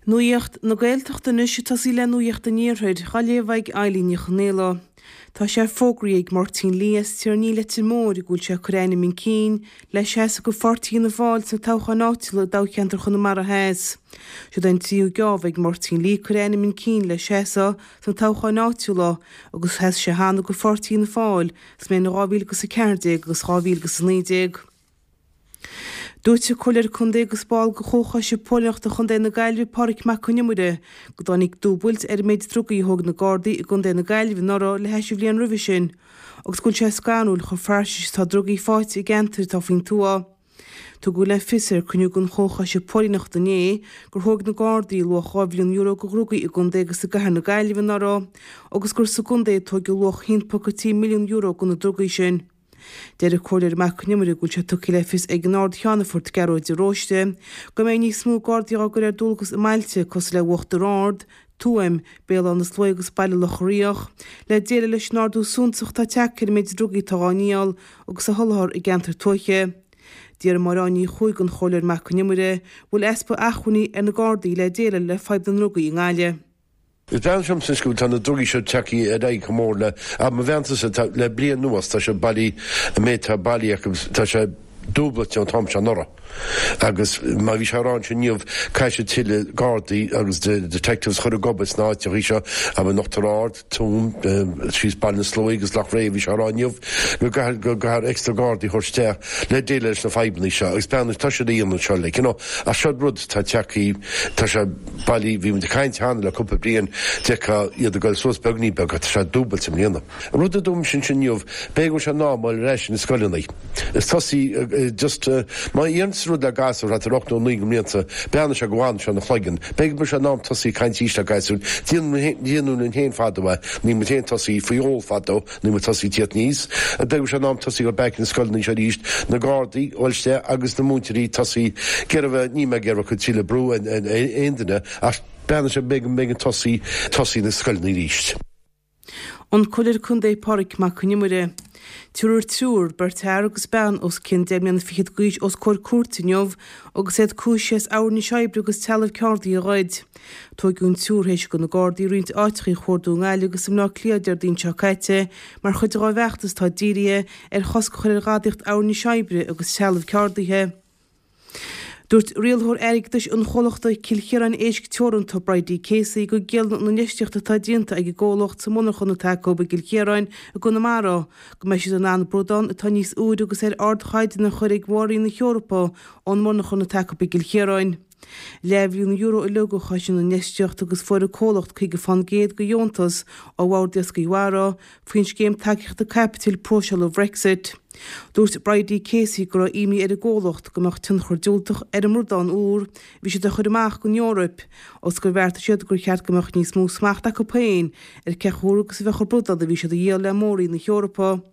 Nuacht na Gaeltachta anois ag tosaí le Nuacht an Iarthair, á léamh ag Eilín Ní Chonaola. Tá sé fógraithe ag Máirtín Lee as Tír an Fhia Leitir Móir go bhfuil sé ag cur a ainm chun cinn le seasamh do Pháirtí Fhianna Fáil sna toghcháin áitiúla i dtoghcheantar Chonamara Theas. Siod é an tríú geábh ag Máirtín Lee cur a ainm chun cinn le seasamh sna toghcháin áitiúla agus sheas sé cheana do Pháirtí Fhianna Fáil sa mbliain 2014 agus 2019. Dúirt an Comhairleoir Contae agus ball de Chomhchoiste Póilíneachta Chontae na Gaillimhe, Pádraig Mac Con Iomaire, go dtáinig dúbailt ar an méid drugaí a thóg na Gardaí i gContae na Gaillimhe anuraidh le hais an bhliain roimhe sin agus go bhfuil sé scanrúil chomh fairsing is atá drugaí faighte i gceantair atá faoin tuath. Tugadh le fios ar cruinniú den Chomhchoiste Póilíneachta inné gur thóg na Gardaí luach €2 mhilliún de dhrugaí i gcontae agus i gcathair na Gaillimhe anuraidh agus gur sa gcontae a tóigeadh luach €1.3 milliún de na drugaí sin. Deir an Comhairleoir Mac Con Iomaire go bhfuil sé tugtha le fios ag an Ard-Cheannfort, Gearóid de Róiste, go mbeidh níos mó Gardaí á gcur ar dualgas i mbailte cosúil le Uachtar Ard, Tuaim, Béal Átha na Sluaighe agus Baile Locha Riach, le déileáil leis an ardú suntasach atá tagtha ar an méid drugaí atá á ndíol agus á sholáthar i gceantair tuaithe. D'fhiafraigh Máire Áine Ní Chuaig den Chomhairleoir Mac Con Iomaire bhfuil easpa acmhainní ar na Gardaí le déileáil le fadhb na ndrugaí i nGaillimh. Is breathnaíonn sé liomsa anois go bhfuil tá na drugaí seo tagtha ar aghaidh chomh mór le, ach mo mheansa-sa, tá, le bliain anuas, tá sé bailí, an méid atá bailithe acu, tá sé dúblailte ón t-am seo anuraidh. Agus mar bhí sé á rá ansin inniu, caithfidh siad tuilleadh gardaí agus detectives a chur ag obair sna áiteachaí seo, abair in Uachtar Ard, Tuaim, síos Baile na Sluaighe agus Loch Ré, bhí sé á rá inniu go gcaithfear, go gcaithfear extra gardaí a thabhairt isteach le déileáil leis na fadhbanna seo agus breathnaigh, tá siad a dhéanamh seo, like, you know, ach seo rud atá tagtha, tá sé. Bailí, bhí muid ag caint cheana le cúpla bliain, d'fheicfeá iad ag goil suas beagní beag ach tá sé dúbailte i mbliana. An rud a dúirt mise ansin inniu, b'fhéidir go bhfuil sé in am dul ar ais na scoileanna. Is tosaí just, má dhéananns rud le gasúr thart ar 8 nó 9 go mblianta, breathnaíonn sé go bhfanann sé ina chloigeann. B'fhéidir go bhfuil sé in am tosaí ag caint arís le gasúir. Déanadh linn féin fadó é, ní muid féin tosaí faoi ól fadó. Níl muid tosaí tíocht aníos. B'fhéidir go bhfuil sé in am tosaí goil back na scoileanna seo arís, na gardaí a dhul isteach agus na múinteoirí tosaí ag iarraidh bheith, níl mé ag iarraidh cur tuilleadh brú ar aon duine ach breathnaigh sé b'fhéidir go mbeidh an tosaí, tosaí na scoileanna arís. An Comhairleoir Contae Pádraig Mac Con Iomaire. Tabharfar triúr, beirt fhear agus bean os cionn deich mbliana fichead d'aois os comhair cúirte inniu agus iad cúisithe as abhair oibre agus trealamh ceardaí a ghoid. Tóigeadh an triúr théis do na Gardaí roinnt áiteachaí a chuardú i nGaillimh agus i mBleá Cliath Déardaoin seo caite mar chuid dhá bhfeachtas atá dírithe ar chosc a chur ar ghadaíocht abhair oibre agus trealamh ceardaithe. Dúirt rialthóir airgeadais an chomhlachta Cill Chiaráin Éisc Teoranta, Bridie Casey, go gciallaíonn an infheistíocht atá déanta ag an gcomhlacht sa monarchan atá acu i gCill Chiaráin i gConamara go mbeidh siad in ann bradán atá níos úire agus ar ardchaighdeán a chur ag Mór-Roinn na hEorpa ón monarchan atá acu i gCill Chiaráin. Leathmhilliún euro uilig a chosain an infheistíocht agus fuair an comhlacht 50 fán gcéad de dheontas ó Bhord Iascaigh Mhara faoin scéim tacaíochta caipitil próiseála Bhrexit. Dúirt Bridie Casey go raibh imní ar an gcomhlacht go mbeadh tionchar diúltach ar an mbradán úr a bhí siad a chur amach don Eoraip agus gur bheartaigh siad gur cheart go mbeadh níos mó smacht acu féin ar cé chomh húr agus a bheadh an bradán a bhí siad a dhíol le Mór-Roinn na hEorpa.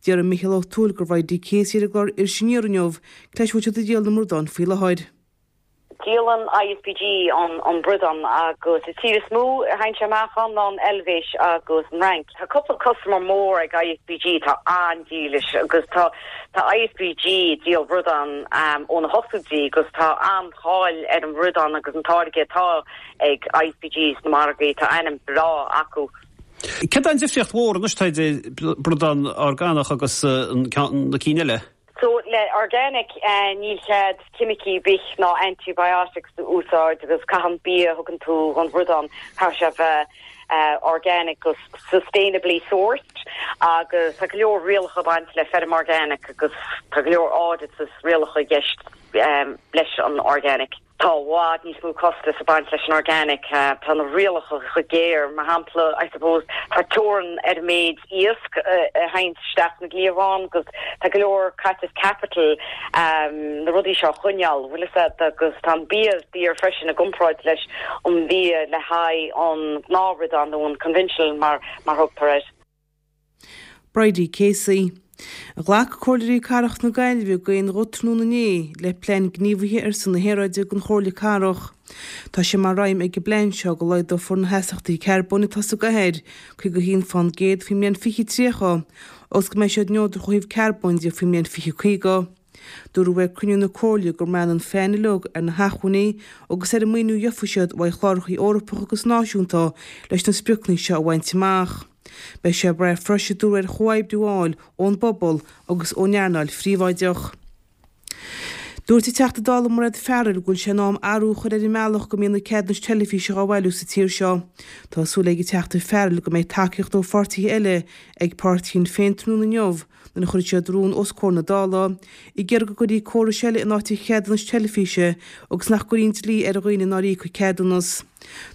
D'fhiafraigh Micheál Ó Tuathail de Bhridie Casey ar an gclár Iris Aniar inniu Cad leis a bhfuil siad ag díol na mbradán faoi láthair. Díolann ISPG an bradán agus an tír is mó a théann sé amach ann ná an Eilvéis agus an Fhrainc. Tá cúpla customer mór ag ISPG atá an-dílis agus tá tá ISPG ag díol bradán ó na hochtóidí agus tá an-cháil ar an bhradán agus an táirge atá ag ISPG sna margaí, tá ainm breá acu. Céard é an difríocht mhór anois atá idir bradán orgánach agus na cinn eile? So le organic níl cead ceimicí ar bith ná antibiotics a úsáid agus caithfidh an bia a thugann tú don bhradán caithfidh sé a bheith organic agus sustainably sourced agus tá go leor rialacha ag baint le feirm organic agus tá go leor audits is rialacha i gceist leis an organic. Tá i bhfad níos mó costas ag baint leis an organic. Tá na rialacha chomh géar. Mar shampla, I suppose, tá teorainn ar an méid iasc a théann isteach sna cliabháin agus tá go leor caiteachas capital na rudaí seo a choinneáil, bhfuil fhios a'd, agus tá an bia daor freisin i gcomparáid leis an bhia le haghaidh an gnáthbhradán nó an conventional mar mar thugtar air. Bridie Casey. Ghlac Comhairleoirí Cathrach na Gaillimhe d'aon ghuth tráthnóna inné le Plean Gníomhaithe ar son na hAeráide don Chomhairle Cathrach. Tá sé mar aidhm ag an bplean seo go laghdófar na hastaíochtaí carbóin atá sa gcathair 51 fán gcéad faoin mbliain 2030 agus go mbeidh siad neodrach ó thaobh carbóin de faoin mbliain 2050. Dúradh ag cruinniú na Comhairle go mbraitheann an phlean uilig ar na hacmhainní agus ar an maoiniú a gheofaidh siad uaidh chlárachaí Eorpacha agus náisiúnta leis na spriocanna seo a bhaint amach. Beidh sé ag brath freisin, a dúradh, ar chomhoibriú a fháil ón bpobal agus ón earnáil phríobháideach. Dúirt an Teachta Dála Mairéad Farrell go bhfuil sé in am athrú a chur ar an mbealach go mbíonn na ceadúnais teilifíse á bhailiú sa tír seo. Tá súil ag an Teachta Farrell go mbeidh tacaíocht ó pháirtithe eile ag páirtí Shinn Féin tráthnóna inniu nuair a chuirfidh siad rún os comhair na Dála ag iarraidh go gcuirfí córais eile in áit an cheadúnais teilifíse agus nach gcuirfí an dlí ar dhaoine nár íoc an ceadúnas.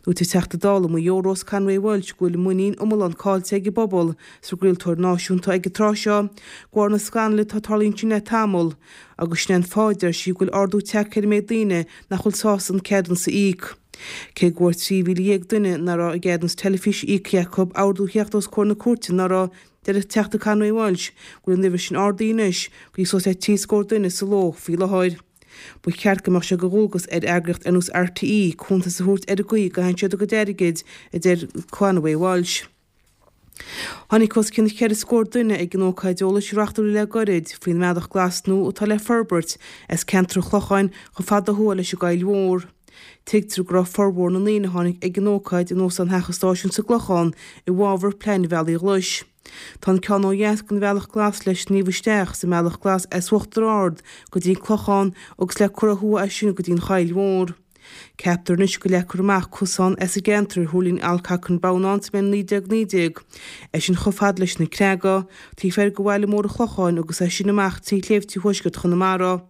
Dúirt an Teachta Dála Maigh Eo Rose Conway Walsh go bhfuil muinín iomlán caillte ag an bpobal sa gcraoltóir náisiúnta ag an tráth seo de bharr na scannail atá ag tarlú ansin le tamall agus sin é an fáth a deir sí go bhfuil ardú tagtha ar an méid daoine nach bhfuil sásta an ceadúnas a íoc. Cé go bhfuair 13,000 duine nach raibh a gceadúnas teilifíse íoctha acu ordú a theacht os comhair na cúirte anuraidh, deir an Teachta Conway Walsh go bhfuil an uimhir sin ardaithe anois go dtí suas le trí scór duine sa ló faoi láthair. Ba cheart go mbeadh sé de dhualgas ar eagraíocht ar nós RTÉ cuntas a thabhairt ar an gcaoi a gcaitheann siad a gcuid airgid, a deir Conway Walsh. Tháinig os cionn cheithre scór duine ag an ócáid eolais a reáchtáladh le gairid faoin mbealach glas nua atá le forbairt as ceantar an Chlocháin chomh fada ó thuaidh leis an gCoill Mhór. Tuigtear go raibh formhór na ndaoine a tháinig ag an ócáid in Óstán Theach an Stáisiúin sa gClochán i bhfabhar plean an Bhealaigh Ghlais. Tá an ceann ó dheas den Bhealach Glas le sníomh isteach sa mBealach Glas as Uachtar Ard go dtí an Clochán agus le cur ó thuaidh as sin go dtí an Choill Mhór. Ceaptar anois go leagfar amach cosán as an gceantar ar thuirling Alcock and Brown ann sa mbliain 1919, é sin chomh fada leis na Creaga, taobh thoir de bhaile mór an Chlocháin agus é sin amach trí shléibhte thuaisceart Chonamara.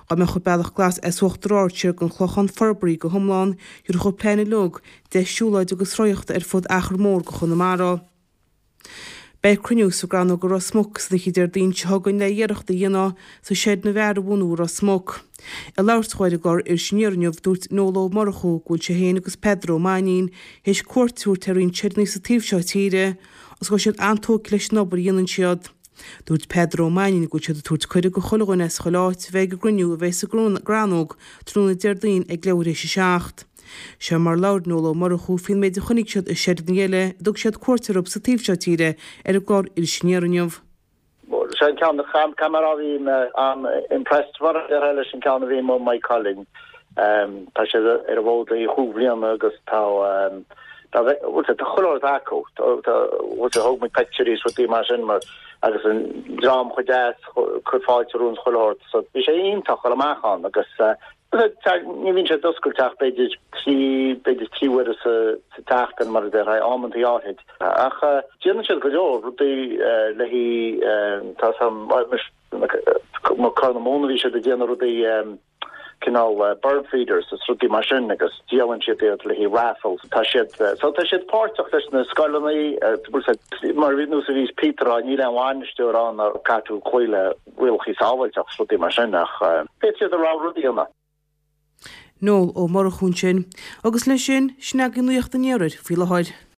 Dá mbeadh an Bealach Glas as Uachtar Ard siar go an Clochán forbartha go hiomlán, thabharfadh an plean uilig deis siúlóide agus rothaíochta ar fud achar mór de Chonamara. Beidh cruinniú sa gCrannóg i Ros Muc san oíche Déardaoin seo chugainn le iarracht a dhéanamh sa seideanna bhfear a bhunú i Ros Muc. Ag labhairt dhó ar an gclár Iris Aniar inniu, dúirt Noel Ó Murchú go bhfuil sé féin agus Peadar Ó Mainnín théis cuairt a thabhairt ar roinnt seideanna sa taobh seo tíre agus go bhfuil siad an-tógtha leis an obair a dhéanann siad. Dúirt Peadar Ó Mainnín go bhfuil siad ag tabhairt cuireadh go chuile dhuine as chuile áit a bheith ag an gcruinniú a bheidh sa gCrannóg tráthnóna Déardaoin ag leathuair théis a 7. Seo mar labhair Noel Ó Murchú faoin méid a chonaic siad i seideanna eile a dtug siad cuairt orthu sa taobh seo tíre ar an gclár Iris Aniar inniu. Sé an ceann ceamara a bhí mé an-impressed mar a déarfá leis an ceann a bhí i Maigh Cuilinn. Tá sé ar an bhfód le chúig bhliana agus tá tá tá chuile shórt acu. Tá thóg muid pictiúirí is rudaí mar sin mar agus an dream chomh deas cur fáilte romhainn chuile shórt. So bhí sé iontach dul amach ann agus Ní bhíonn sé oscailte ach b'fhéidir trí, b'fhéidir trí huaire sa tseachtain mar a déarfá, amantaí áithrid. Ach déanann siad go leor rudaí le haghaidh, tá mo Corr na Móna bhí siad ag déanamh rudaí cineál bird feeders is rudaí mar sin agus díolann siad iad le haghaidh raffles. Tá siad, so tá siad páirteach leis na scoileanna, mar nós a bhí Peter á, níl aon bhainisteoir ann a caithfidh tú cloí le rialacha sábháilteachta is rudaí mar sin ach féadfaidh siad a rogha rud a dhéanamh. Noel Ó Murchú ansin. Agus leis sin, sin agaibh Nuacht an Iarthair faoi láthair.